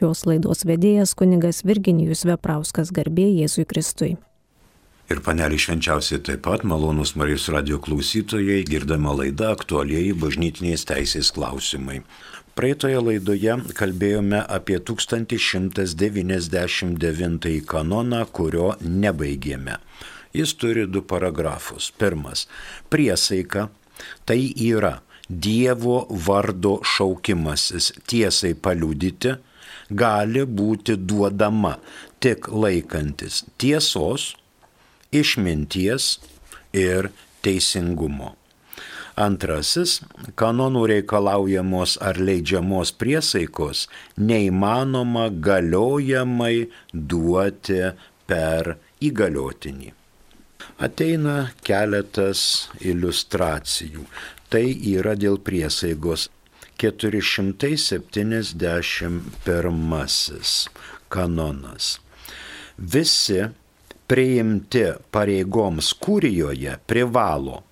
šios laidos vedėjas kunigas Virginijus Veprauskas, garbė Jėzui Kristui. Ir panelį švenčiausiai taip pat, malonūs Marijos radijo klausytojai, girdama laidą aktualieji bažnytinės teisės klausimai. Praeitoje laidoje kalbėjome apie 1199 kanoną, kurio nebaigėme. Jis turi 2 paragrafus. Pirmas – priesaika, tai yra Dievo vardo šaukimasis tiesai paliudyti, gali būti duodama tik laikantis tiesos, išminties ir teisingumo. Antrasis – kanonų reikalaujamos ar leidžiamos priesaikos neįmanoma galiojamai duoti per įgaliotinį. Ateina keletas iliustracijų. Tai yra dėl priesaigos. 471 kanonas. Visi priimti pareigoms kurijoje privalo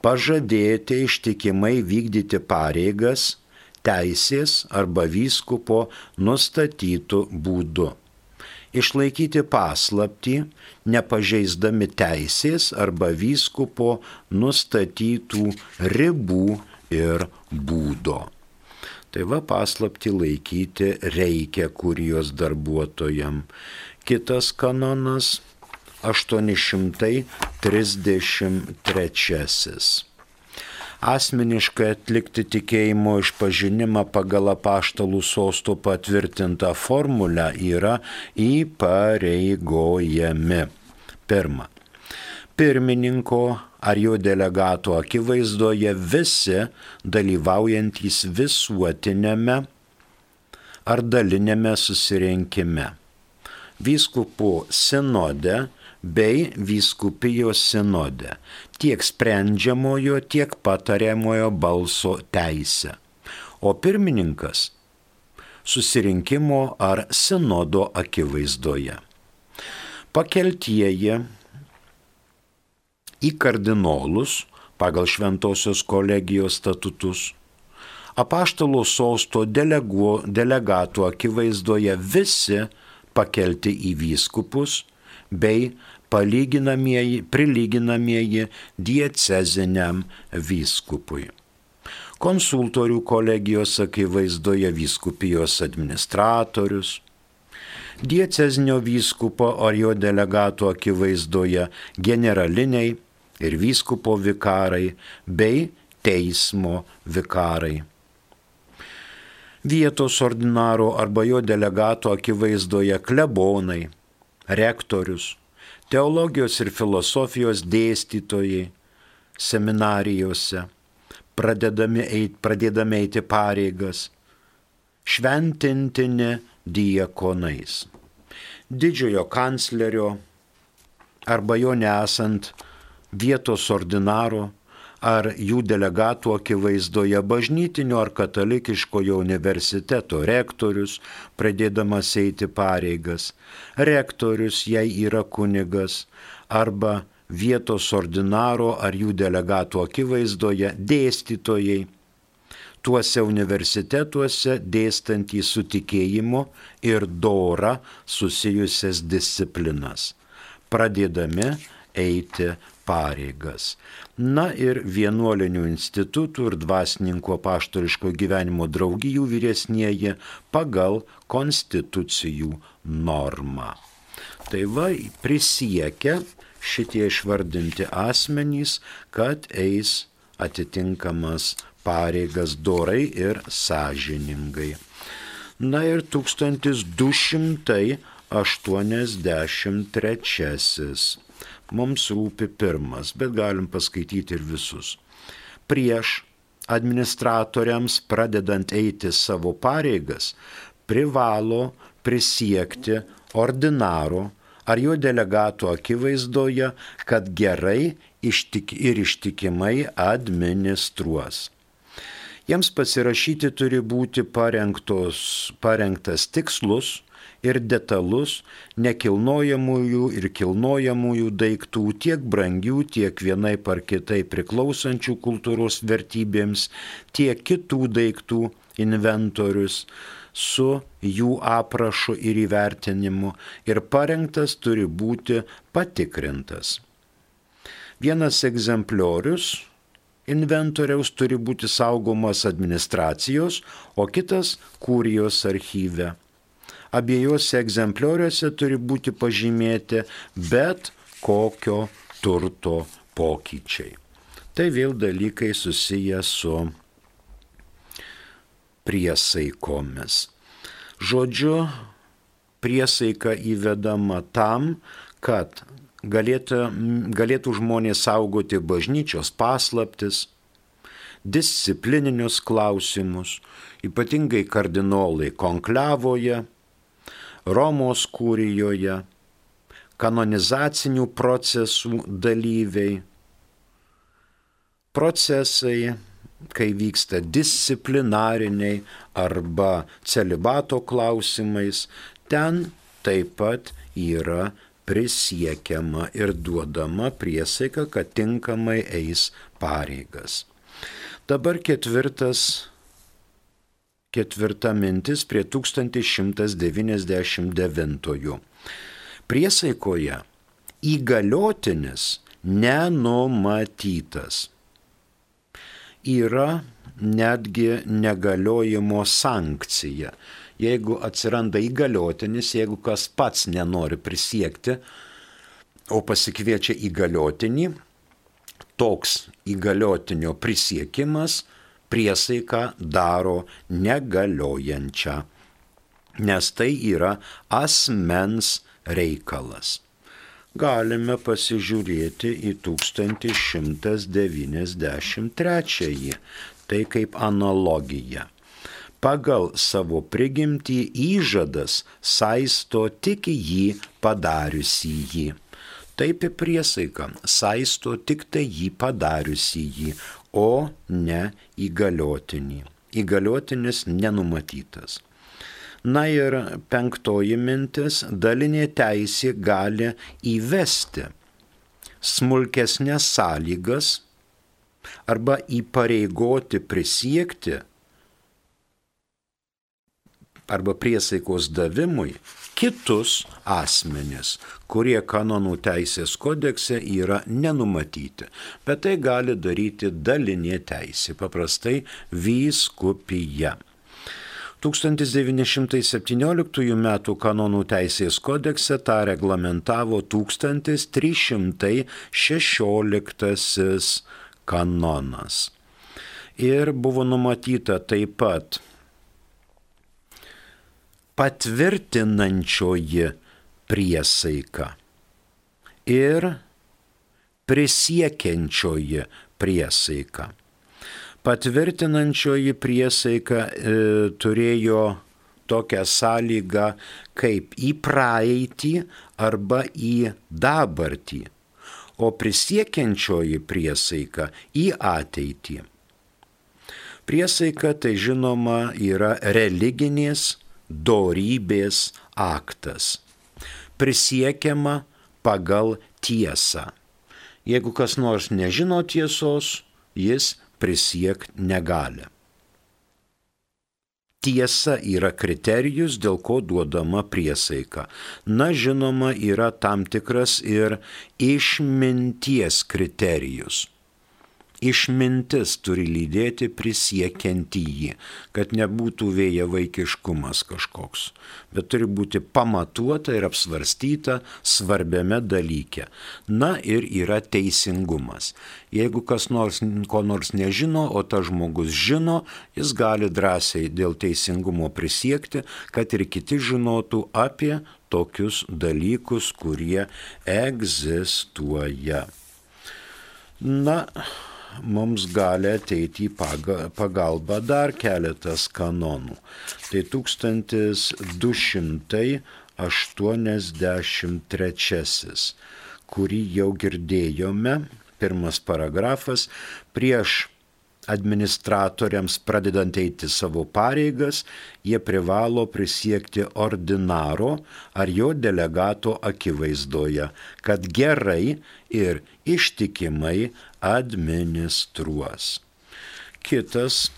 pažadėti ištikimai vykdyti pareigas teisės arba vyskupo nustatytų būdu, išlaikyti paslaptį, nepažeisdami teisės arba vyskupo nustatytų ribų ir būdo. Tai va, paslaptį laikyti reikia kurijos darbuotojam. Kitas kanonas 833. Asmeniškai atlikti tikėjimo išpažinimą pagal apaštalų sosto patvirtintą formulę yra įpareigojami. Pirma, pirmininko ar jo delegato akivaizdoje visi dalyvaujantys visuotinėme ar dalinėme susirinkime, vyskupų sinode bei vyskupijos sinode, tiek sprendžiamojo, tiek patariamojo balso teisę, o pirmininkas susirinkimo ar sinodo akivaizdoje. Pakeltieji į kardinolus pagal Šventosios kolegijos statutus, apaštalo sosto delegatų akivaizdoje visi pakelti į vyskupus bei prilyginamieji dieceziniam vyskupui. Konsultorių kolegijos akivaizdoje vyskupijos administratorius, diecezinio vyskupo ar jo delegatų akivaizdoje generaliniai ir vyskupo vikarai bei teismo vikarai. Vietos ordinaro arba jo delegato akivaizdoje klebonai, rektorius, teologijos ir filosofijos dėstytojai seminarijose, pradėdami eiti pareigas, šventintini diakonais. Didžiojo kanclerio arba jo nesant vietos ordinaro ar jų delegatų akivaizdoje bažnytinio ar katalikiškojo universiteto rektorius, pradėdamas eiti pareigas, rektorius, jei yra kunigas, arba vietos ordinaro ar jų delegatų akivaizdoje dėstytojai, tuose universitetuose dėstantys su tikėjimu ir dora susijusias disciplinas, pradėdami eiti pareigas. Na ir vienuolinių institutų ir dvasininkų apaštališko gyvenimo draugijų vyresnieji pagal konstitucijų normą. Tai va, prisiekia šitie išvardinti asmenys, kad eis atitinkamas pareigas dorai ir sąžiningai. Na ir 1283. Mums rūpi pirmas, bet galim paskaityti ir visus. Prieš administratoriams pradedant eiti savo pareigas, privalo prisiekti ordinaro ar jo delegato akivaizdoje, kad gerai ir ištikimai administruos. Jiems pasirašyti turi būti parengtas tikslus ir detalus nekilnojamųjų ir kilnojamųjų daiktų, tiek brangių, tiek vienaip ar kitaip priklausančių kultūros vertybėms, tiek kitų daiktų inventorius, su jų aprašu ir įvertinimu ir parengtas turi būti patikrintas. Vienas egzempliorius inventoriaus turi būti saugomas administracijos, o kitas kurijos archyve. Abiejose egzemplioriuose turi būti pažymėti bet kokio turto pokyčiai. Tai vėl dalykai susiję su priesaikomis. Žodžiu, priesaika įvedama tam, kad galėtų žmonės saugoti bažnyčios paslaptis, disciplininius klausimus, ypatingai kardinolai konklevoje, Romos kurijoje, kanonizacinių procesų dalyviai, procesai, kai vyksta disciplinariniai arba celibato klausimais, ten taip pat yra prisiekiama ir duodama priesaika, kad tinkamai eis pareigas. Dabar ketvirta mintis prie 1199. Priesaikoje įgaliotinis nenumatytas. Yra netgi negaliojimo sankcija. Jeigu atsiranda įgaliotinis, jeigu kas pats nenori prisiekti, o pasikviečia įgaliotinį, toks įgaliotinio prisiekimas priesaiką daro negaliojančią, nes tai yra asmens reikalas. Galime pasižiūrėti į 1193, tai kaip analogija. Pagal savo prigimtį įžadas saisto tik jį padariusį jį. Taip ir priesaika saisto tik tai jį padariusį jį, o ne įgaliotinį. Įgaliotinis nenumatytas. Na ir 5 mintis, dalinė teisė gali įvesti smulkesnės sąlygas arba įpareigoti prisiekti arba priesaikos davimui kitus asmenis, kurie kanonų teisės kodekse yra nenumatyti. Bet tai gali daryti dalinė teisė, paprastai vyskupija. 1917 m. kanonų teisės kodekse tą reglamentavo 1316 kanonas. Ir buvo numatyta taip pat patvirtinančioji priesaika ir prisiekiančioji priesaika. Patvirtinančioji priesaika turėjo tokią sąlygą kaip į praeitį arba į dabartį, o prisiekiančioji priesaika į ateitį. Priesaika tai žinoma yra religinės dorybės aktas. Prisiekiama pagal tiesą. Jeigu kas nors nežino tiesos, jis prisiekti negali. Tiesa yra kriterijus, dėl ko duodama priesaika. Na, žinoma, yra tam tikras ir išminties kriterijus. Išmintis turi lydėti prisiekiantįjį, kad nebūtų vėjavaikiškumas kažkoks, bet turi būti pamatuota ir apsvarstyta svarbiame dalyke. Na ir yra teisingumas. Jeigu kas nors ko nors nežino, o tas žmogus žino, jis gali drąsiai dėl teisingumo prisiekti, kad ir kiti žinotų apie tokius dalykus, kurie egzistuoja. Na, mums gali ateiti į pagalbą dar keletas kanonų. Tai 1283, kurį jau girdėjome, pirmas paragrafas, prieš administratoriams pradedant eiti savo pareigas, jie privalo prisiekti ordinaro ar jo delegato akivaizdoje, kad gerai ir ištikimai administruos. Kitas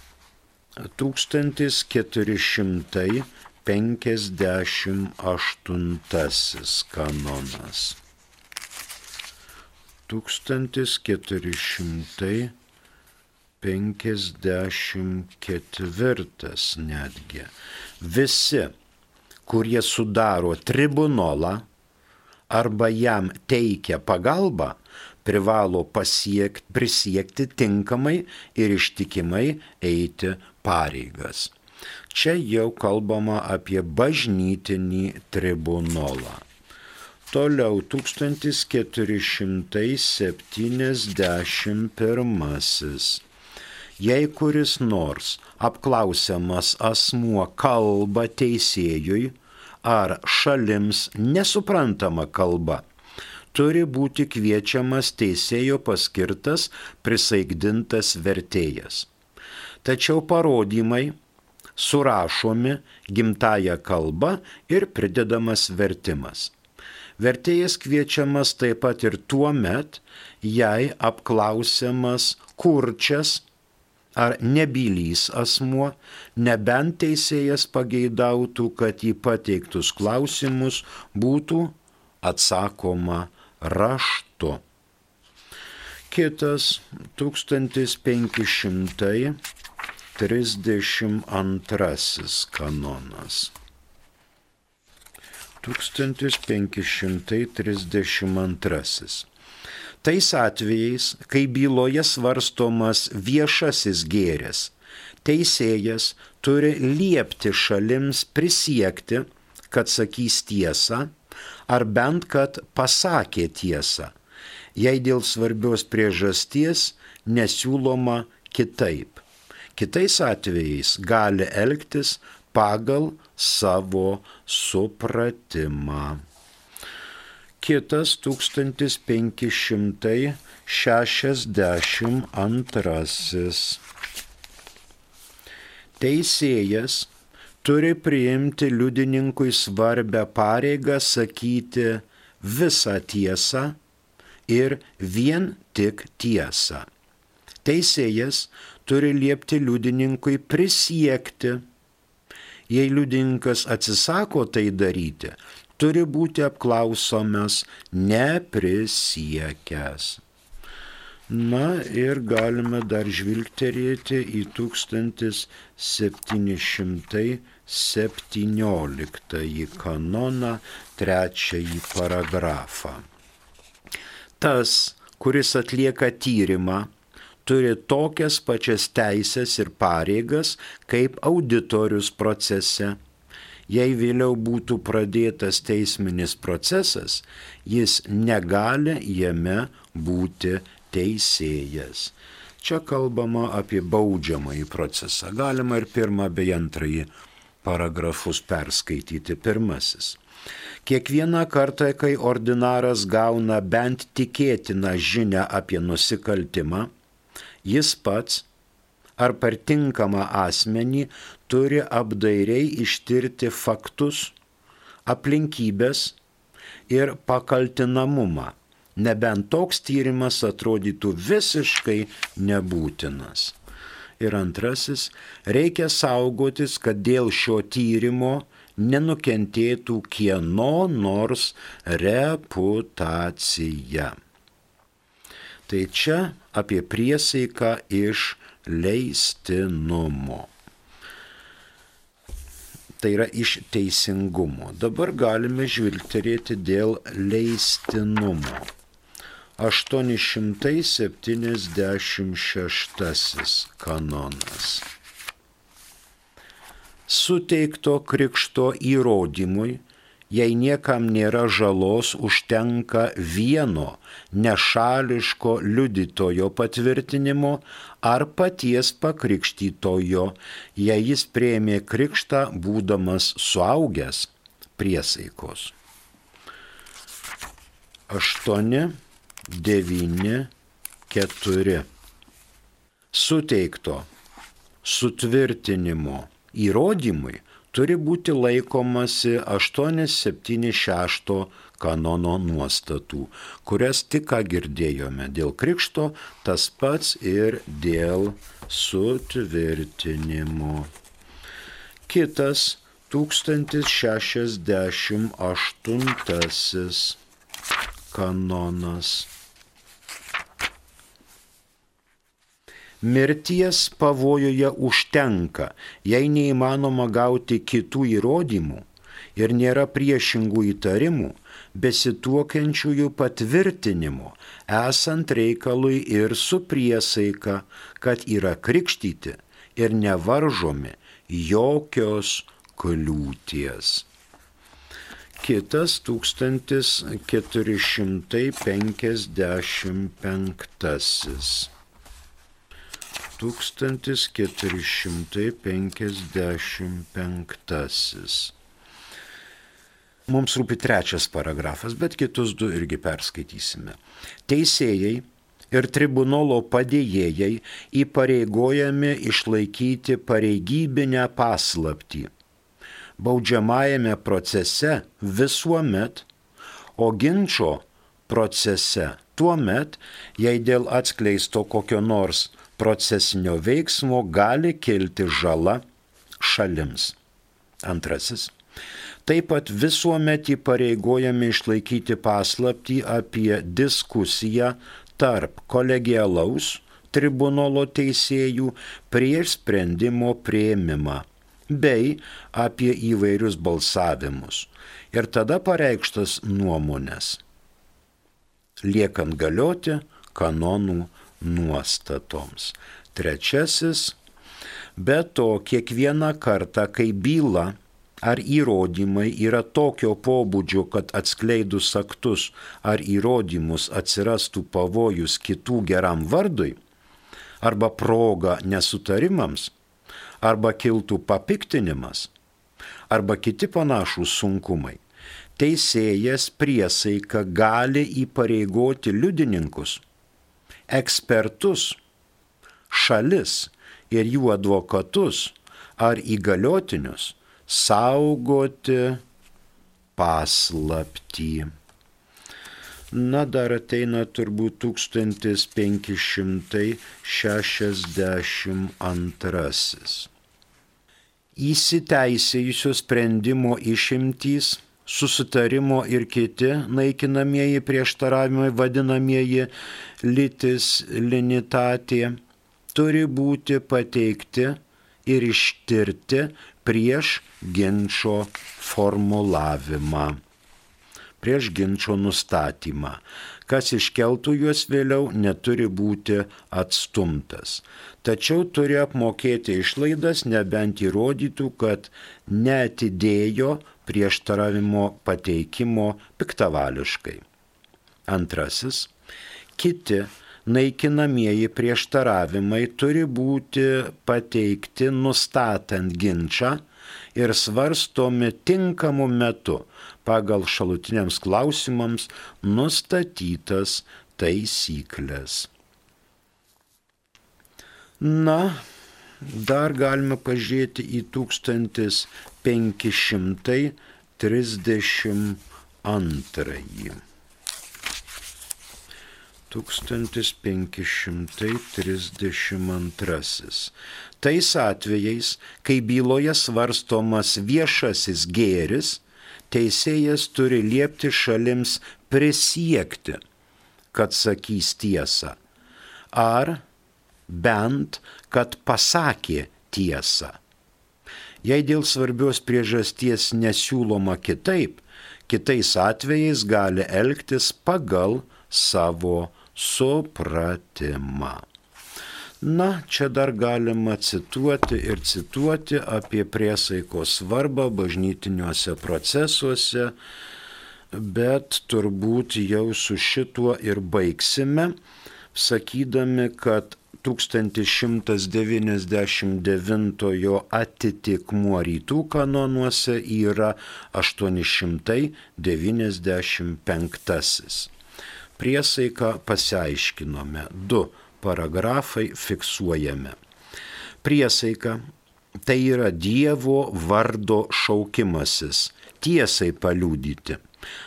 1458 kanonas. 1454 netgi. Visi, kurie sudaro tribunolą arba jam teikia pagalbą, privalo prisiekti tinkamai ir ištikimai eiti pareigas. Čia jau kalbama apie bažnytinį tribunolą. Toliau 1471. Jei kuris nors apklausiamas asmuo kalba teisėjui ar šalims nesuprantama kalba, turi būti kviečiamas teisėjo paskirtas prisaikdintas vertėjas. Tačiau parodymai surašomi gimtąja kalba ir pridedamas vertimas. Vertėjas kviečiamas taip pat ir tuo met, jei apklausiamas kurčias ar nebylys asmuo, nebent teisėjas pageidautų, kad į pateiktus klausimus būtų atsakoma raštu. Kitas 1532 kanonas. 1532. Tais atvejais, kai byloje svarstomas viešasis gėris, teisėjas turi liepti šalims prisiekti, kad sakys tiesą, ar bent kad pasakė tiesą, jei dėl svarbios priežasties nesiūloma kitaip. Kitais atvejais gali elgtis pagal savo supratimą. Kitas 1562. Teisėjas turi priimti liudininkui svarbę pareigą sakyti visą tiesą ir vien tik tiesą. Teisėjas turi liepti liudininkui prisiekti. Jei liudininkas atsisako tai daryti, turi būti apklausomas neprisiekęs. Na ir galime dar žvilgterėti į 1717 kanoną, 3 paragrafą. Tas, kuris atlieka tyrimą, turi tokias pačias teisės ir pareigas kaip auditorius procese. Jei vėliau būtų pradėtas teisminis procesas, jis negali jame būti teisėjas. Čia kalbama apie baudžiamąjį procesą. Galima ir 1 bei 2 paragrafus perskaityti. 1. Kiekvieną kartą, kai ordinaras gauna bent tikėtiną žinią apie nusikaltimą, jis pats ar per tinkamą asmenį turi apdairiai ištirti faktus, aplinkybės ir pakaltinamumą, nebent toks tyrimas atrodytų visiškai nebūtinas. Ir 2. Reikia saugotis, kad dėl šio tyrimo nenukentėtų kieno nors reputacija. Tai čia apie priesaiką iš leistinumo. Tai yra iš teisingumo. Dabar galime žvilgterėti dėl leistinumo. 876 kanonas. Suteikto krikšto įrodymui, jei niekam nėra žalos, užtenka vieno nešališko liudytojo patvirtinimo ar paties pakrikštytojo, jei jis priėmė krikštą būdamas suaugęs, priesaikos. 8, 9, 4. Suteikto sutvirtinimo įrodymui turi būti laikomasi 876 kanono nuostatų, kurias tik ką girdėjome dėl krikšto, tas pats ir dėl sutvirtinimo. Kitas 1068 kanonas. Mirties pavojuje užtenka, jei neįmanoma gauti kitų įrodymų ir nėra priešingų įtarimų, besituokiančiųjų patvirtinimo, esant reikalui ir su priesaika, kad yra krikštyti ir nevaržomi jokios kliūties. Kitas 1455. 1455. Mums rūpi 3 paragrafas, bet kitus 2 irgi perskaitysime. Teisėjai ir tribunolo padėjėjai įpareigojami išlaikyti pareigybinę paslaptį baudžiamajame procese visuomet, o ginčo procese tuomet, jei dėl atskleisto kokio nors procesinio veiksmo gali kilti žala šalims. 2. Taip pat visuomet įpareigojami išlaikyti paslaptį apie diskusiją tarp kolegialaus tribunolo teisėjų prieš sprendimo priėmimą bei apie įvairius balsavimus ir tada pareikštas nuomonės, liekant galioti kanonų nuostatoms. 3. Be to, kiekvieną kartą, kai byla ar įrodymai yra tokio pobūdžio, kad atskleidus aktus ar įrodymus atsirastų pavojus kitų geram vardui, arba proga nesutarimams, arba kiltų papiktinimas, arba kiti panašūs sunkumai, teisėjas priesaika gali įpareigoti liudininkus, ekspertus, šalis ir jų advokatus ar įgaliotinius saugoti paslaptį. Na, dar ateina turbūt 1562. Įsiteisėjusio sprendimo išimtys, susitarimo ir kiti naikinamieji prieštaravimai, vadinamieji litis linitatė, turi būti pateikti ir ištirti prieš ginčo formulavimą, prieš ginčo nustatymą. Kas iškeltų juos vėliau, neturi būti atstumtas. Tačiau turi apmokėti išlaidas, nebent įrodytų, kad neatidėjo prieštaravimo pateikimo piktavališkai. 2. Kiti naikinamieji prieštaravimai turi būti pateikti nustatant ginčą ir svarstomi tinkamu metu pagal šalutiniams klausimams nustatytas taisyklės. Na, dar galime pažiūrėti į 1532. 1532. Tais atvejais, kai byloje svarstomas viešasis gėris, teisėjas turi liepti šalims prisiekti, kad sakys tiesą, ar bent, kad pasakė tiesą. Jei dėl svarbios priežasties nesiūloma kitaip, kitais atvejais gali elgtis pagal savo supratimą. Na, čia dar galima cituoti apie priesaikos svarbą bažnytiniuose procesuose, bet turbūt jau su šituo ir baigsime, sakydami, kad 1199 atitikmuo rytų kanonuose yra 895. Priesaiką pasiaiškinome, 2 paragrafai fiksuojame. Priesaika tai yra Dievo vardo šaukimasis, tiesai paliudyti,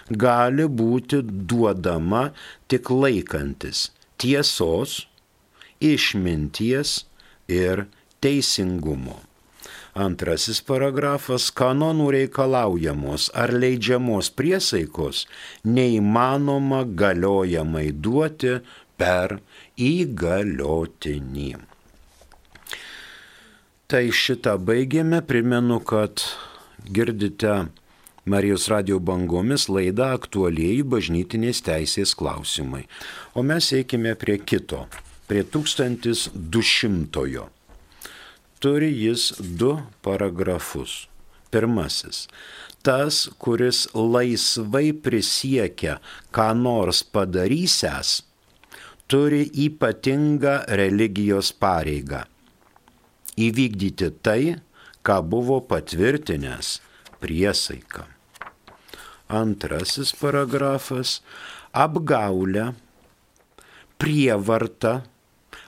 gali būti duodama tik laikantis tiesos, išminties ir teisingumo. Antrasis paragrafas - kanonų reikalaujamos ar leidžiamos priesaikos neįmanoma galiojamai duoti per įgaliotinį. Tai šitą baigėme, primenu, kad girdite Marijos radijo bangomis laidą Aktualieji bažnytinės teisės klausimai. O mes eikime prie kito, prie 1200-ojo. Turi jis 2 paragrafus. Pirmasis - tas, kuris laisvai prisiekia, ką nors padarysęs, turi ypatingą religijos pareigą - įvykdyti tai, ką buvo patvirtinęs priesaika. Antrasis paragrafas - apgaulę, prievartą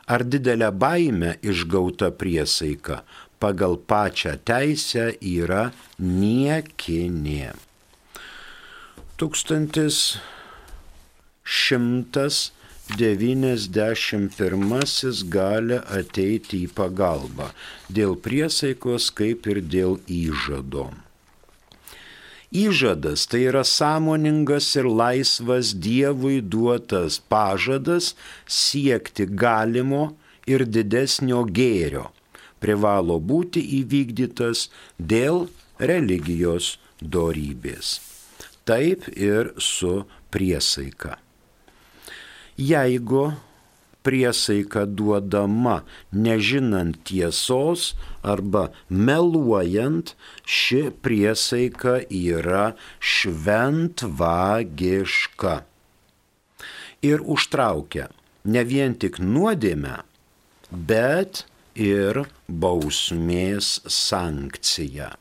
ar didelę baimę išgauta priesaika pagal pačią teisę yra niekinė. 1191 gali ateiti į pagalbą dėl priesaikos kaip ir dėl įžado. Įžadas tai yra sąmoningas ir laisvas Dievui duotas pažadas siekti galimo ir didesnio gėrio, privalo būti įvykdytas dėl religijos dorybės. Taip ir su priesaika. Jeigu priesaika duodama nežinant tiesos arba meluojant, ši priesaika yra šventvagiška ir užtraukia ne vien tik nuodėmę, bet ir bausmės sankciją.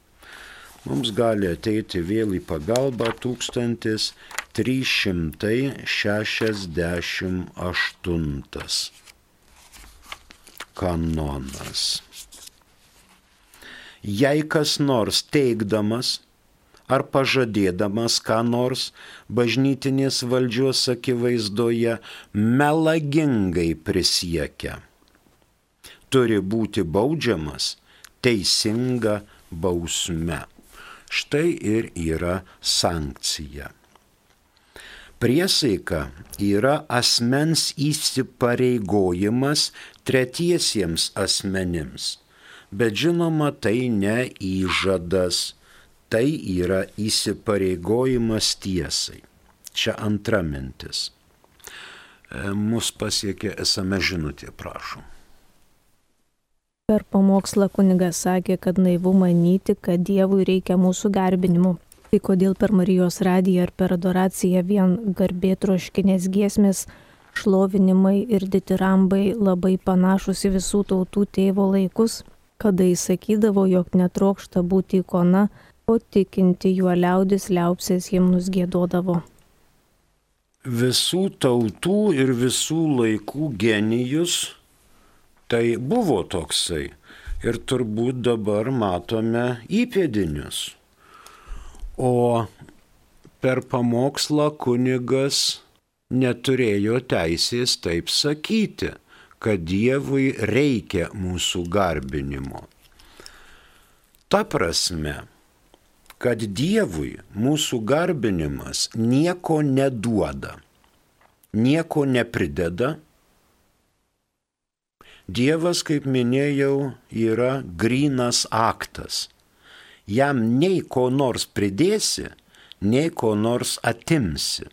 Mums gali ateiti vėl į pagalbą 1368 kanonas. Jei kas nors teigdamas ar pažadėdamas ką nors bažnytinės valdžios akivaizdoje melagingai prisiekia, turi būti baudžiamas teisinga bausme. Štai ir yra sankcija. Priesaika yra asmens įsipareigojimas tretiesiems asmenims, bet žinoma tai ne įžadas, tai yra įsipareigojimas tiesai. Čia antra mintis. Mus pasiekė SMS žinutė, prašom. Per pamokslą kunigas sakė, kad naivu manyti, kad Dievui reikia mūsų garbinimo. Tai kodėl per Marijos radiją ar per adoraciją vien garbėtroškinės giesmės, šlovinimai ir ditirambai labai panašus į visų tautų tėvo laikus, kada jis sakydavo, jog netrokšta būti ikona, o tikinti juo liaudis liaupsės himnus giedodavo. Visų tautų ir visų laikų genijus tai buvo toksai ir turbūt dabar matome įpėdinius. O per pamokslą kunigas neturėjo teisės taip sakyti, kad Dievui reikia mūsų garbinimo. Ta prasme, kad Dievui mūsų garbinimas nieko neduoda, nieko neprideda. Dievas, kaip minėjau, yra grynas aktas. Jam nei ko nors pridėsi, nei ko nors atimsi.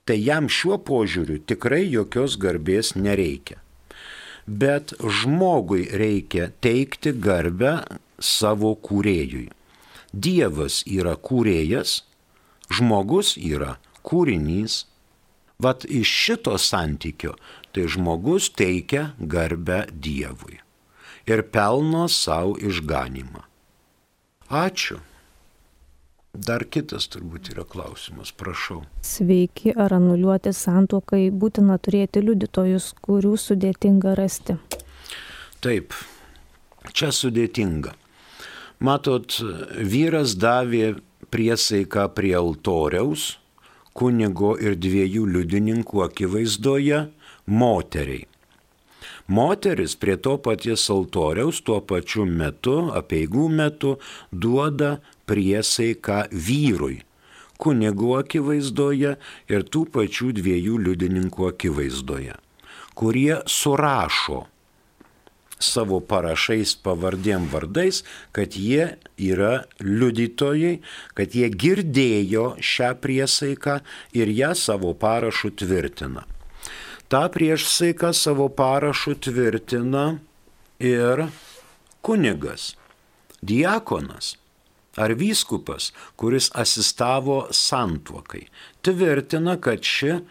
Tai jam šiuo požiūriu tikrai jokios garbės nereikia. Bet žmogui reikia teikti garbę savo kūrėjui. Dievas yra kūrėjas, žmogus yra kūrinys. Vat iš šito santykio tai žmogus teikia garbę Dievui ir pelno savo išganimą. Ačiū. Dar kitas turbūt yra klausimas, prašau. Sveiki, ar anuliuoti santuokai būtina turėti liudytojus, kurių sudėtinga rasti? Taip, Čia sudėtinga. Matot, vyras davė priesaiką prie altoriaus, kunigo ir 2 liudininkų akivaizdoje moteriai. Moteris prie to paties altoriaus tuo pačiu metu, apeigų metu, duoda priesaiką vyrui, kunigo akivaizdoje ir tų pačių 2 liudininkų akivaizdoje, kurie surašo savo parašais pavardėm vardais, kad jie yra liudytojai, kad jie girdėjo šią priesaiką ir ją savo parašu tvirtina. Ta priesaiką savo parašu tvirtina ir kunigas, diakonas ar vyskupas, kuris asistavo santuokai. Tvirtina, kad ši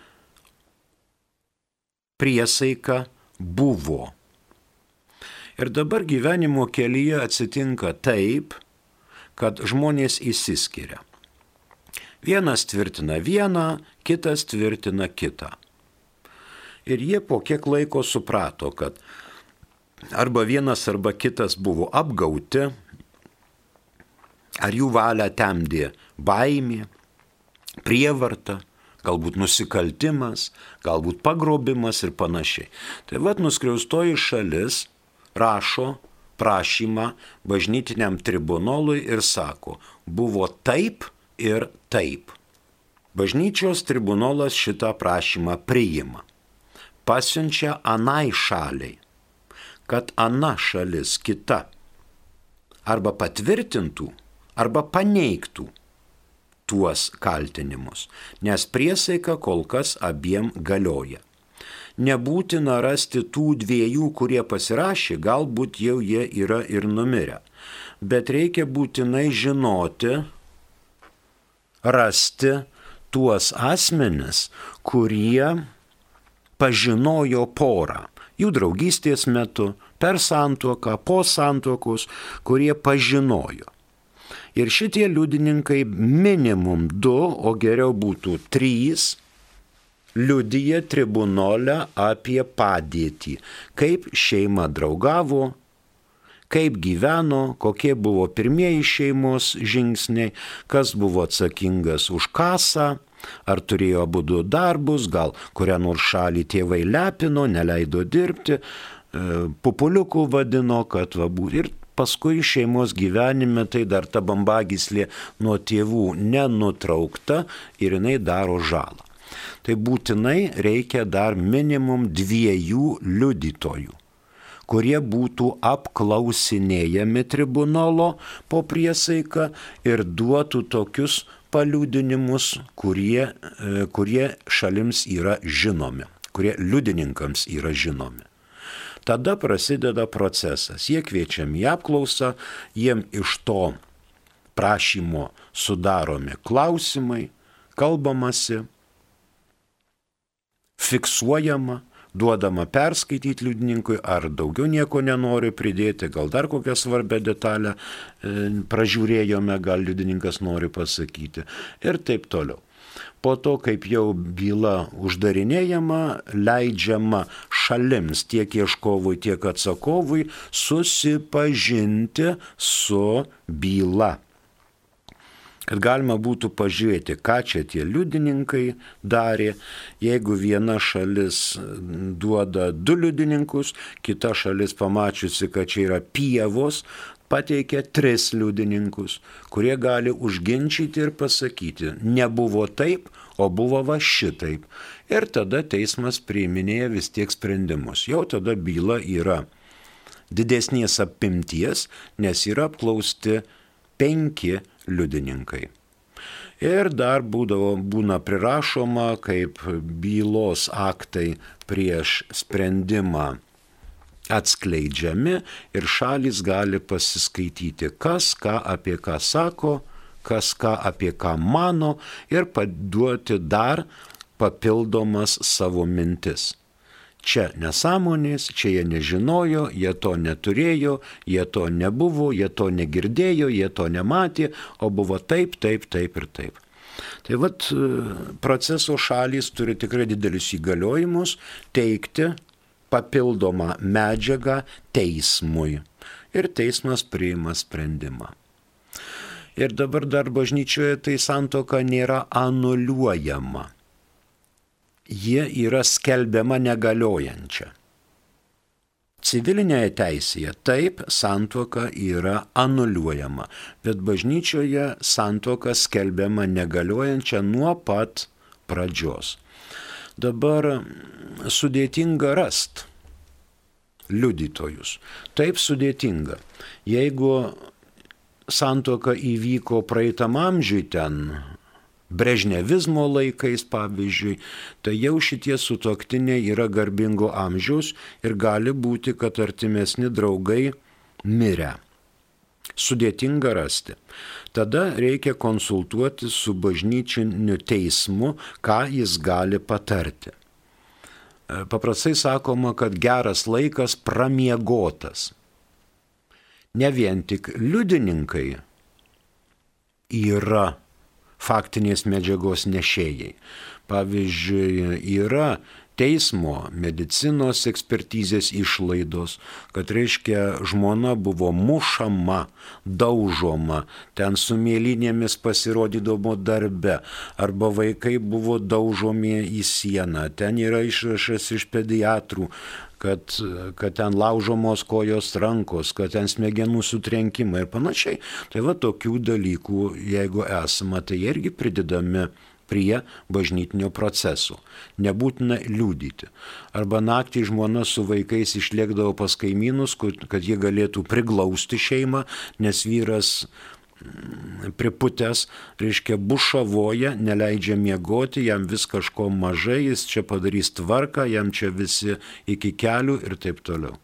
priesaika buvo. Ir dabar gyvenimo kelyje atsitinka taip, kad žmonės išsiskiria. Vienas tvirtina vieną, kitas tvirtina kitą. Ir jie po kiek laiko suprato, kad arba vienas arba kitas buvo apgauti, ar jų valią temdė baimė, prievarta, galbūt nusikaltimas, galbūt pagrobimas ir panašiai. Tai vat nuskriaustoji šalis rašo prašymą bažnytiniam tribunolui ir sako, buvo taip ir taip. Bažnyčios tribunolas šitą prašymą priima, pasiunčia anai šaliai, kad ana šalis kita arba patvirtintų, arba paneigtų tuos kaltinimus, nes priesaika kol kas abiem galioja. Nebūtina rasti tų 2, kurie pasirašė, galbūt jau jie yra ir numirę. Bet reikia būtinai žinoti, rasti tuos asmenis, kurie pažinojo porą. Jų draugystės metu, per santuoką, po santuokos, kurie pažinojo. Ir šitie liudininkai minimum 2, o geriau būtų 3, liudija tribunole apie padėtį, kaip šeima draugavo, kaip gyveno, kokie buvo pirmieji šeimos žingsniai, kas buvo atsakingas už kasą, ar turėjo abudu darbus, gal kurią nors šalį tėvai lepino, neleido dirbti, pupuliukų vadino, kad va būtų. Ir paskui šeimos gyvenime tai dar ta bambagyslė nuo tėvų nenutraukta ir jinai daro žalą. Tai būtinai reikia dar minimum 2 liudytojų, kurie būtų apklausinėjami tribunolo po priesaiką ir duotų tokius paliudinimus, kurie šalims yra žinomi, kurie liudininkams yra žinomi. Tada prasideda procesas. Jie kviečiami į apklausą, jiem iš to prašymo sudaromi klausimai, kalbamasi, fiksuojama, duodama perskaityti liudininkui, ar daugiau nieko nenori pridėti, gal dar kokią svarbę detalę pražiūrėjome, gal liudininkas nori pasakyti ir taip toliau. Po to, kaip jau byla uždarinėjama, leidžiama šalims tiek ieškovui, tiek atsakovui susipažinti su byla. Kad galima būtų pažiūrėti, ką čia tie liudininkai darė. Jeigu viena šalis duoda 2 liudininkus, kita šalis pamačiusi, kad čia yra pievos, pateikia 3 liudininkus, kurie gali užginčyti ir pasakyti, nebuvo taip, o buvo va šitaip. Ir tada teismas priiminėja vis tiek sprendimus. Jau tada byla yra didesnės apimties, nes yra apklausti 5 liudininkai. Ir dar būna prirašoma, kaip bylos aktai prieš sprendimą atskleidžiami ir šalys gali pasiskaityti, kas ką apie ką sako, kas ką apie ką mano ir paduoti dar papildomas savo mintis. Čia nesąmonės, čia jie nežinojo, jie to neturėjo, jie to nebuvo, jie to negirdėjo, jie to nematė, o buvo taip, taip, taip ir taip. Tai vat proceso šalys turi tikrai didelius įgaliojimus teikti papildomą medžiagą teismui. ir teismas priima sprendimą. Ir dabar dar bažnyčioje tai santuoka nėra anuliuojama. Ji yra skelbiama negaliojančia. Civilinėje teisėje taip santuoka yra anuliuojama, bet bažnyčioje santuoka skelbiama negaliojančia nuo pat pradžios. Dabar sudėtinga rasti liudytojus. Taip sudėtinga. Jeigu santuoka įvyko praeitam amžiui ten, brežnevizmo laikais pavyzdžiui, tai jau šitie sutuoktiniai yra garbingo amžiaus ir gali būti, kad artimesni draugai mirę. Sudėtinga rasti. Tada reikia konsultuoti su bažnyčiniu teismu, ką jis gali patarti. Paprastai sakoma, kad geras laikas pramiegotas. Ne vien tik liudininkai yra faktinės medžiagos nešėjai. Pavyzdžiui, yra teismo medicinos ekspertizės išlaidos, kad reiškia žmona buvo mušama, daužoma, ten su mėlynėmis pasirodydavo darbe, arba vaikai buvo daužomi į sieną, ten yra išrašas iš pediatrų, kad ten laužomos kojos rankos, kad ten smegenų sutrenkimai ir panašiai. Tai va tokių dalykų, jeigu esama, tai irgi pridedami prie bažnytinio proceso. Nebūtina liudyti. Arba naktį žmona su vaikais išlėkdavo pas kaimynus, kad jie galėtų priglausti šeimą, nes vyras priputęs, reiškia, bušavoja, neleidžia miegoti, jam vis kažko mažai, jis čia padarys tvarką, jam čia visi iki kelių ir taip toliau.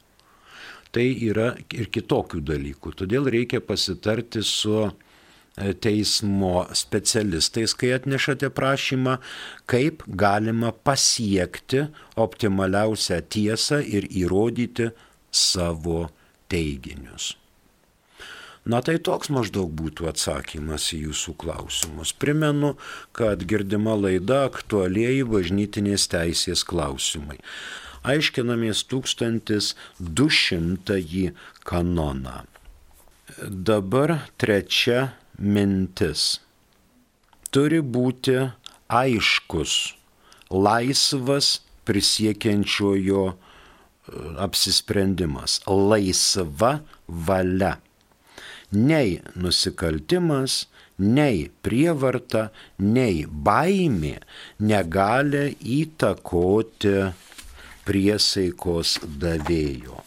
Tai yra ir kitokių dalykų. Todėl reikia pasitarti su teismo specialistais, kai atnešate prašymą, kaip galima pasiekti optimaliausią tiesą ir įrodyti savo teiginius. Na tai toks maždaug būtų atsakymas į jūsų klausimus. Primenu, kad girdima laida aktualieji bažnytinės teisės klausimai. Aiškinamės 1200 kanoną. Dabar trečia mintis. Turi būti aiškus, laisvas prisiekiančiojo apsisprendimas, laisva valia. Nei nusikaltimas, nei prievarta, nei baimė negali įtakoti priesaikos davėjo.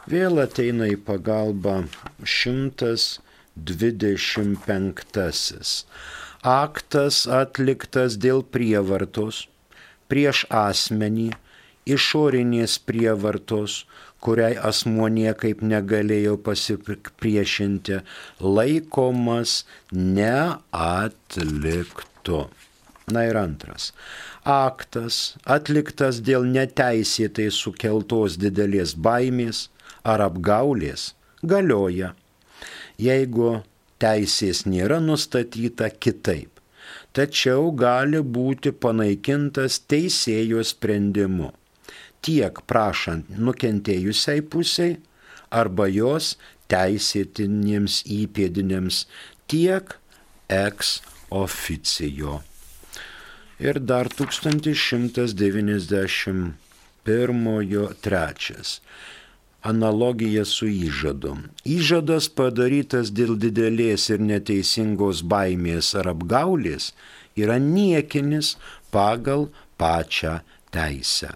Vėl ateina į pagalbą 125. Aktas atliktas dėl prievartos prieš asmenį, išorinės prievartos, kuriai asmuo niekaip negalėjo pasipriešinti, laikomas neatliktu. Na ir antras. Aktas atliktas dėl neteisėtai sukeltos didelės baimės ar apgaulės galioja, jeigu teisės nėra nustatyta kitaip, tačiau gali būti panaikintas teisėjo sprendimu, tiek prašant nukentėjusiai pusiai arba jos teisėtiniems įpėdiniams, tiek ex officio. Ir dar 1191 analogija su įžadu. Įžadas padarytas dėl didelės ir neteisingos baimės ar apgaulės yra niekinis pagal pačią teisę.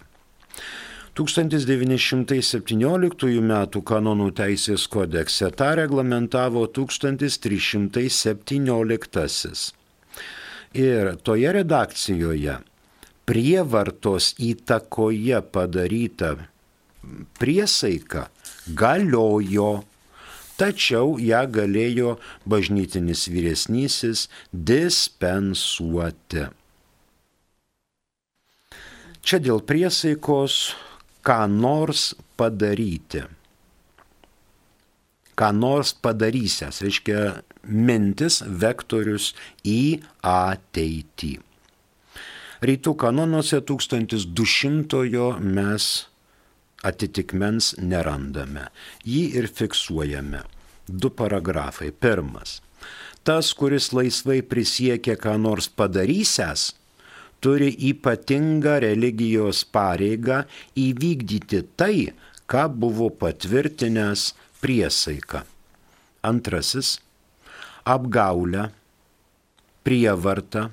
1917 m. kanonų teisės kodekse tą reglamentavo 1317. Ir toje redakcijoje prievartos įtakoje padaryta priesaika galiojo, tačiau ją galėjo bažnytinis vyresnysis dispensuoti. Čia dėl priesaikos ką nors padaryti. Ką nors padarysęs, reiškia mintis, vektorius į ateitį. Rytų kanonuose 1200 mes atitikmens nerandame. Jį ir fiksuojame. 2 paragrafai. 1. Tas, kuris laisvai prisiekia ką nors padarysęs, turi ypatingą religijos pareigą įvykdyti tai, ką buvo patvirtinęs priesaika. 2. Apgaulę, prievartą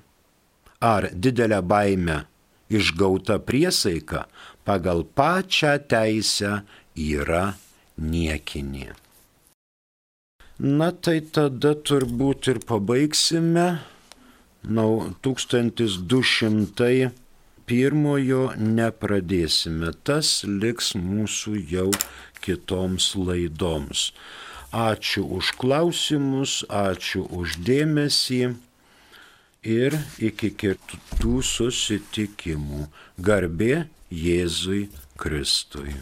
ar didelę baimę išgauta priesaika pagal pačią teisę yra niekinė. Na tai tada turbūt ir pabaigsime. 1201 nepradėsime. Tas liks mūsų jau kitoms laidoms. Ačiū už klausimus, ačiū už dėmesį ir iki kitų susitikimų. Garbė Jėzui Kristui.